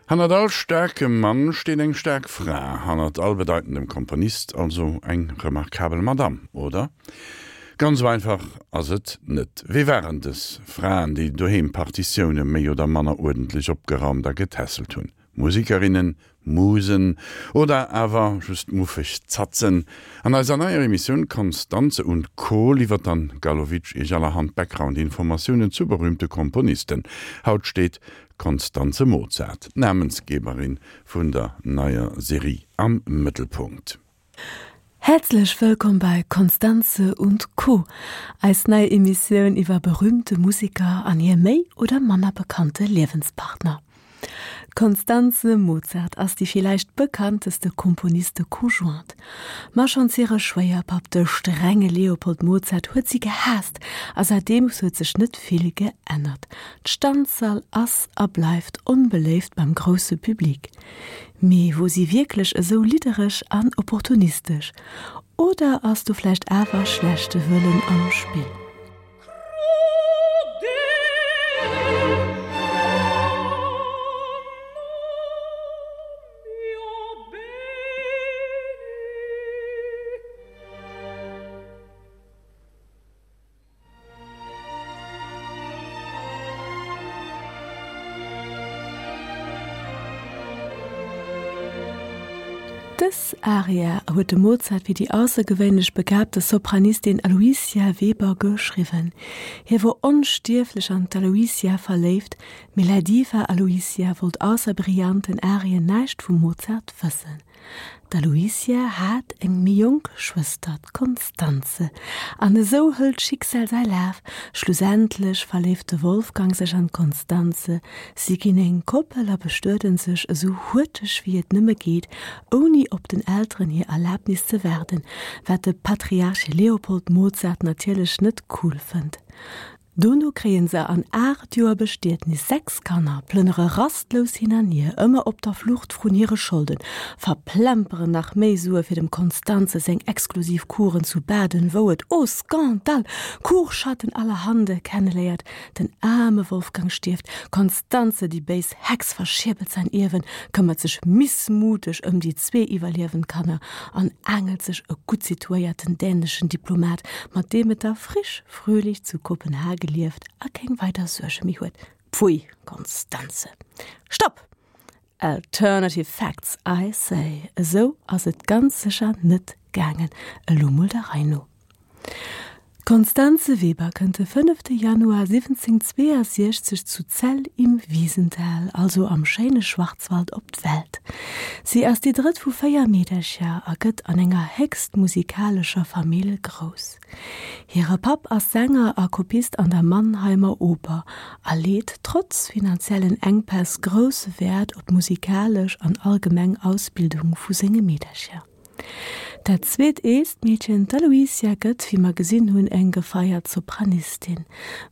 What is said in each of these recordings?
Hannert all staarkem Mann steet eng staark Fra, hannert all bedeitendem Komponist also eng remarkabel Madame, oder? Ganz esou einfach ass et net. Wie waren dës Fraen, déi doheem Partitioune méi oder manner uerdentlech opgeraumt a getässelt hunn? Musikerinnen, Musen oder awer just muffeg Zatzen? An eiser neier Emissioun Constanze und Co. Liwwert d'Anne Galowitsch Iech allerhand Background-Informatiounen zu berühmte Komponisten. Haut steet d'Constanze Mozart, d'Namensgeberin vun der neier Serie, am Mëttelpunkt. Häerzlech wëllkomm bei Constanze und Co., eis nei Emissioun iwwer berühmte Museker an hir méi oder manner bekannte Liewenspartner. D'Constanze Mozart ass déi villäicht bekannteste Komponiste conjointe. Ma schonns hire Schwéierpapp, de strenge Leopold Mozart, huet si gehaasst a säitdeems huet sech net vill geännert. D'Stanzerl ass a bleift onbeléift beim grousse Public. Mee wor si wierklech esou liddereg an opportunistesch? Oder ass do vläicht awer schlechte Wëllen am Spill? Dës Aria huet de Mozart fir déi aussergewéinlech begabte Sopranistin Aloysia Weber geschriwwen. Hie wor onstierflech an d'Aloysia verléift, mee la Diva Aloysia wollt ausser brillanten Arien näischt vum Mozart wëssen. D'Aloysia hat eng méi jonk Schwëster, d'Constanze, an esou hëlt d'Schicksal säi Laf. Schlussendlech verléift de Wolfgang sech an d'Constanze, si ginn eng Koppel a bestueden sech esou huerteg wéi et nëmme geet, ouni op den Elteren hir Erlabnis ze waarden, wat de Patriarch Leopold Mozart natierlech net cool fënnt. Dono kréien se an 8 Joer Bestietnis 6 Kanner, plënnere rastlous hin an hier, ëmmer op der Flucht vrun hire Scholden, verplemperen nach méi Sue fir dem Constanze seng exklusiv Kuren zu Baden, wou et, oh Scandale, Kuchschatten allerhande kenneléiert. Den aarme Wolfgang stierft, d'Constanze, déi béis Hex, verschierbelt säin Ierwen, këmmert sech missmuteg ëm déi zwee iwwerliewend Kanner an aangelt sech e gutt situéierten däneschen Diplomat, mat deem et da frisch fröhlich zu Kopenhage lieft a keng weider Suerge méi huet. Pfui, Constanze! Stopp! Alternative facts, I say! Esou ass et ganz sécher net gaangen. Elo mol der Rei no. D'Constanze Weber kënnt de fënnefte Januar 1762 zu Zell im Wiesental, also am schéine Schwarzwald, op d'Welt. Si ass déi drëtt vu 4 Meedercher a gëtt an enger héchst musikalescher Famill grouss. Hire Papp ass Sänger a Kopist an der Mannheimer Oper a leet trotz finanziellen Enkpäss grousse Wäert op d'musikalesch an allgemeng Ausbildung vu senge Meedercher. Dat zweet eelst Meedchen, d'Aloysia, gëtt, wéi mer gesinn hunn, eng gefeiert Sopranistin.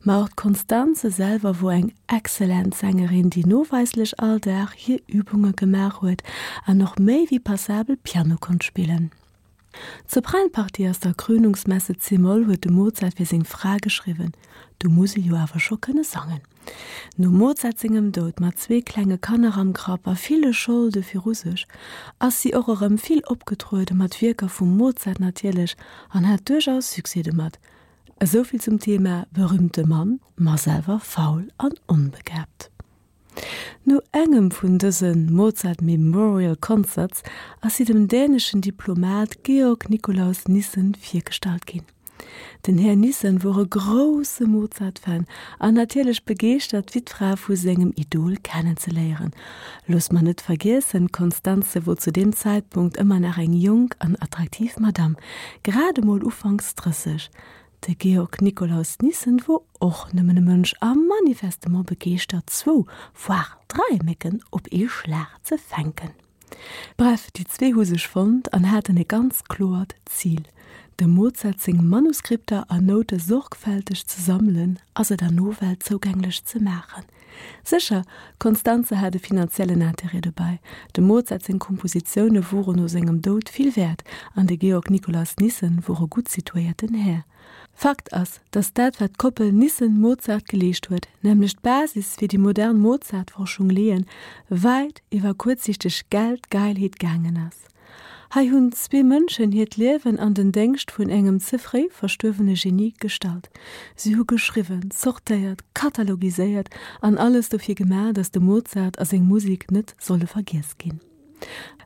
Ma och d'Constanze selwer wor eng excellent Sängerin, déi noweislech all Dag hir Übunge gemaach huet an och méi wéi passabel Piano konnt spillen. D'Sopranpartie aus der Krönungsmesse c-Moll huet de Mozart fir seng Fra geschriwwen. Do muss e jo awer scho kënne sangen. Nom Mozart sengem Doud, mat zwee klenge Kanner am Grapp a ville Scholde viru sech, ass si och erëm vill opgetruede, mat Wierker vum Mozart natierlech, an hat duerchaus Succès domat. Esouvill zum Thema berühmte Mann, ma selwer faul an onbegabt. No engem vun dëse Mozart Memorial Concerts ass si dem däneschen Diplomat Georg Nikolaus Nissen virgestallt ginn. Den Här Nissen wor e grousse Mozart-Fan an natierlech begeeschtert d'Wittfra vu sengem Idol kennenzeléieren. Looss mer net vergiessen, d'Constanze wor zu deem Zäitpunkt ëmmer nach eng jonk an attraktiv Madame, grad emol ufanks 30. De Georg Nikolaus Nissen wor och nëmmen e Mënsch a manifestement begeeschtert zwou, voire drai Mécken op ee Schlag ze fänken. Bref, déi zwee hu sech fonnt an haten e ganz kloert Zil, dem Mozart seng Manuskripter a Noute sorgfälteg ze sammelen a se der Nowelt zougänglech ze maachen. Sécher, d'Constanze hat e finanziellen Interêt dobäi, dem Mozart seng Kompositioune woren no sengem Doud vill wäert an de Georg Nikolaus Nissen wor e gutt situéierten Här. Fakt ass, datt dat wat d'Koppel Nissen-Mozart geleescht huet, nämlech d'Basis fir déi modern Mozart-Forschung leeën, wäit iwwer kuerzsichteg Geldgeilheet gaangen ass. Hei hunn zwee Mënschen hiert Liewen an den Déngscht vun engem ze fréi verstuerwene Genie gestallt. Si hu geschriwwen, zortéiert, katalogiséiert an alles dofir gemaach, datt de Mozart a seng Musek net solle vergiess ginn.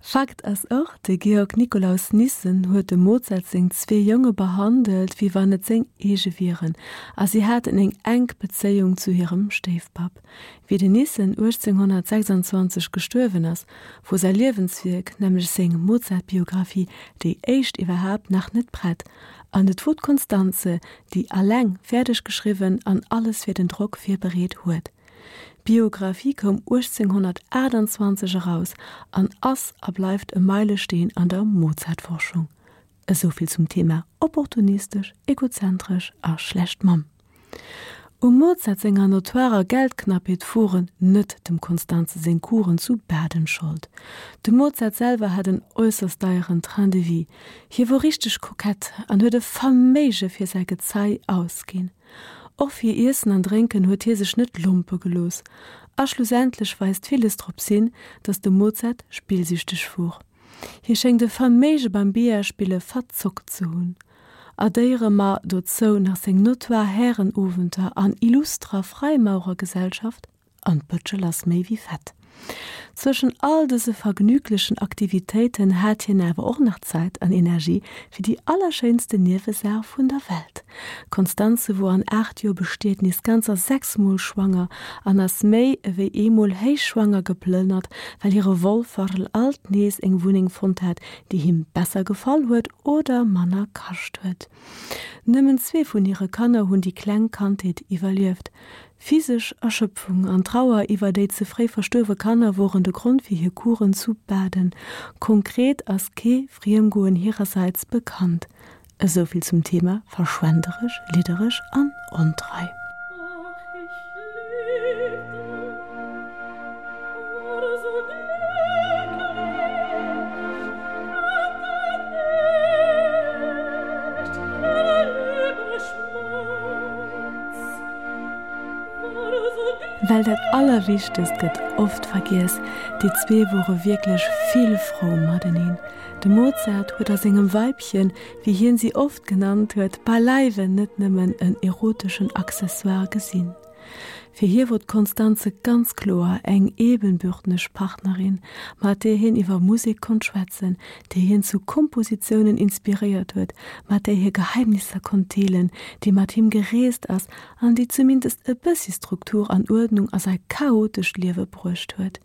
Fakt ass och, de Georg Nikolaus Nissen huet dem Mozart seng zwee Jonge behandelt, wéi wann et seng eege wieren, a si haten eng enk Bezéiung zu hirem Stéifpapp. Wéi den Nissen 1826 gestuerwen ass, wor säi Liewenswierk, nämlech seng Mozart-Biographie, déi éischt iwwerhaapt, nach net prett, an et wor d'Constanze, déi alleng fäerdeg geschriwwen an alles fir den Drock virbereet huet. D'Biographie koum 1828 eraus an ass a bleift e Meilesteen an der Mozart-Forschung. Esou vill zum Thema opportunistesch, egozentresch a schlecht Mamm. Um Mozart senger notoirer Geldknappheet woren net dem Constanze seng Kuren zu Baden Schold. De Mozart selwer hat en äusserst deieren Train de vie, hie wor richteg kokett an huet e Verméige fir säi Gezei ausginn. Och fir Iessen an Drénken huet hie sech net lompe gelooss. A schlussendlech weist villes drops hin, datt de Mozart spillsüchteg wor. Hie schéngt e Verméige beim Billardspille verzockt ze hunn. Addéiere mer dozou nach seng notoire Härenowenter an illustrer Freimaurergesellschaft, an d'Bëtschel ass méi wéi fett. Zwëschen all dëse vergnüglechen Aktivitéiten hat hien awer och nach Zäit an Energie fir déi allerschéinste Niewesaach vun der Welt. D'Constanze wor an 8 Joer Bestietnis ganzer 6 Mol schwanger an ass méi ewéi eemol héichschwanger geplënnert, well hire Wolferl alt nees eng Wunneng fonnt hat, déi him besser gefall huet oder manner kascht huet. Nëmmen zwee vun hire Kanner hunn déi kleng Kandheet iwwerlieft. Physesch Erschöpfung an Trauer iwwer déi ze fréi verstuerwe Kanner woren de Grond fir hir Kuren zu Baden. Konkret ass kee Friemgoen hirersäits bekannt. Esou vill zum Thema verschwenderesch, liddereg an ontrei. Well dat Allerwichtegst gëtt oft vergiess, déi zwee wore wierklech vill frou mateneen. De Mozart huet a sengem Weibchen, wéi hien si oft genannt huet, beileiwen net nëmmen en eroteschen Accessoire gesinn. Fir hie wor d'Constanze ganz kloer eng ebenbürtneg Partnerin, mat där hien iwwer Musek konnt schwätzen, déi hien zu Kompositiounen inspiréiert huet, mat där hie Geheimnisser konnt deelen, déi mat him gereest ass an déi zumindest e bëssi Struktur an Uerdnung a säi chaotescht Liewe bruecht huet.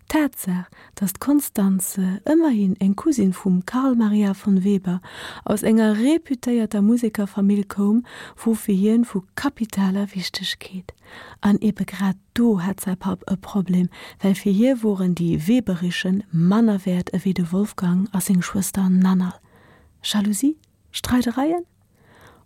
D'Tatsaach, datt d'Constanze, ëmmerhin eng Cousine vum Carl Maria von Weber, aus enger reputéierter Musekerfamill koum, wor fir hien vu kapitaler Wichtegkeet. An ebe grad do hat säi Papp e Problem, well fir hie woren déi Weberischen manner wäert ewéi de Wolfgang a seng Schwëster Nannerl. Jalousie? Streidereien?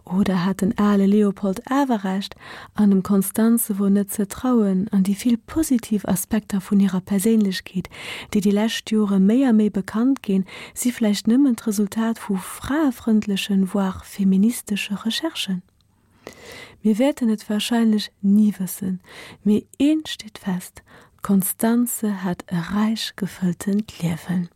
Oder hat den ale Leopold awer Recht an dem Constanze wor net ze trauen an déi vill positiv Aspekter vun hirer Perséinlechkeet, déi déi lescht Jore méi a méi bekannt ginn, si vläicht nëmmen d'Resultat vu fraefrëndlechen, voire feministesche Recherchen? Mir wäerten et warscheinlech ni wëssen, mee eent steet fest, D'Constanze hat e räich gefëlltent Liewen.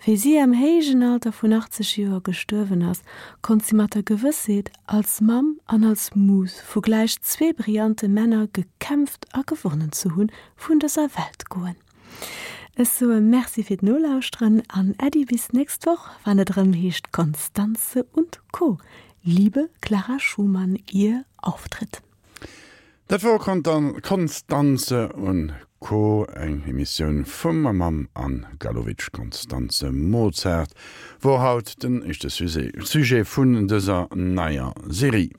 Wéi si am héijen Alter vun 80 Joer gestuerwen ass, konnt si mat der Gewëssheet, als Mamm an als Mus vu gläich zwee brillante Männer gekämpft a gewonnen ze hunn, vun dëser Welt goen. Ech soe Merci fir d'Nolauschteren an Äddi bis nächst Woch, wann et erëm heescht Constanze und Co. Liebe Clara Schumann, ihr Auftritt. Dat wor Constanze und Co, eng Emissioun vum a mam Anne Galowitsch. Constanze Mozart wor haut den éischte Sujet vun dëser neier Serie.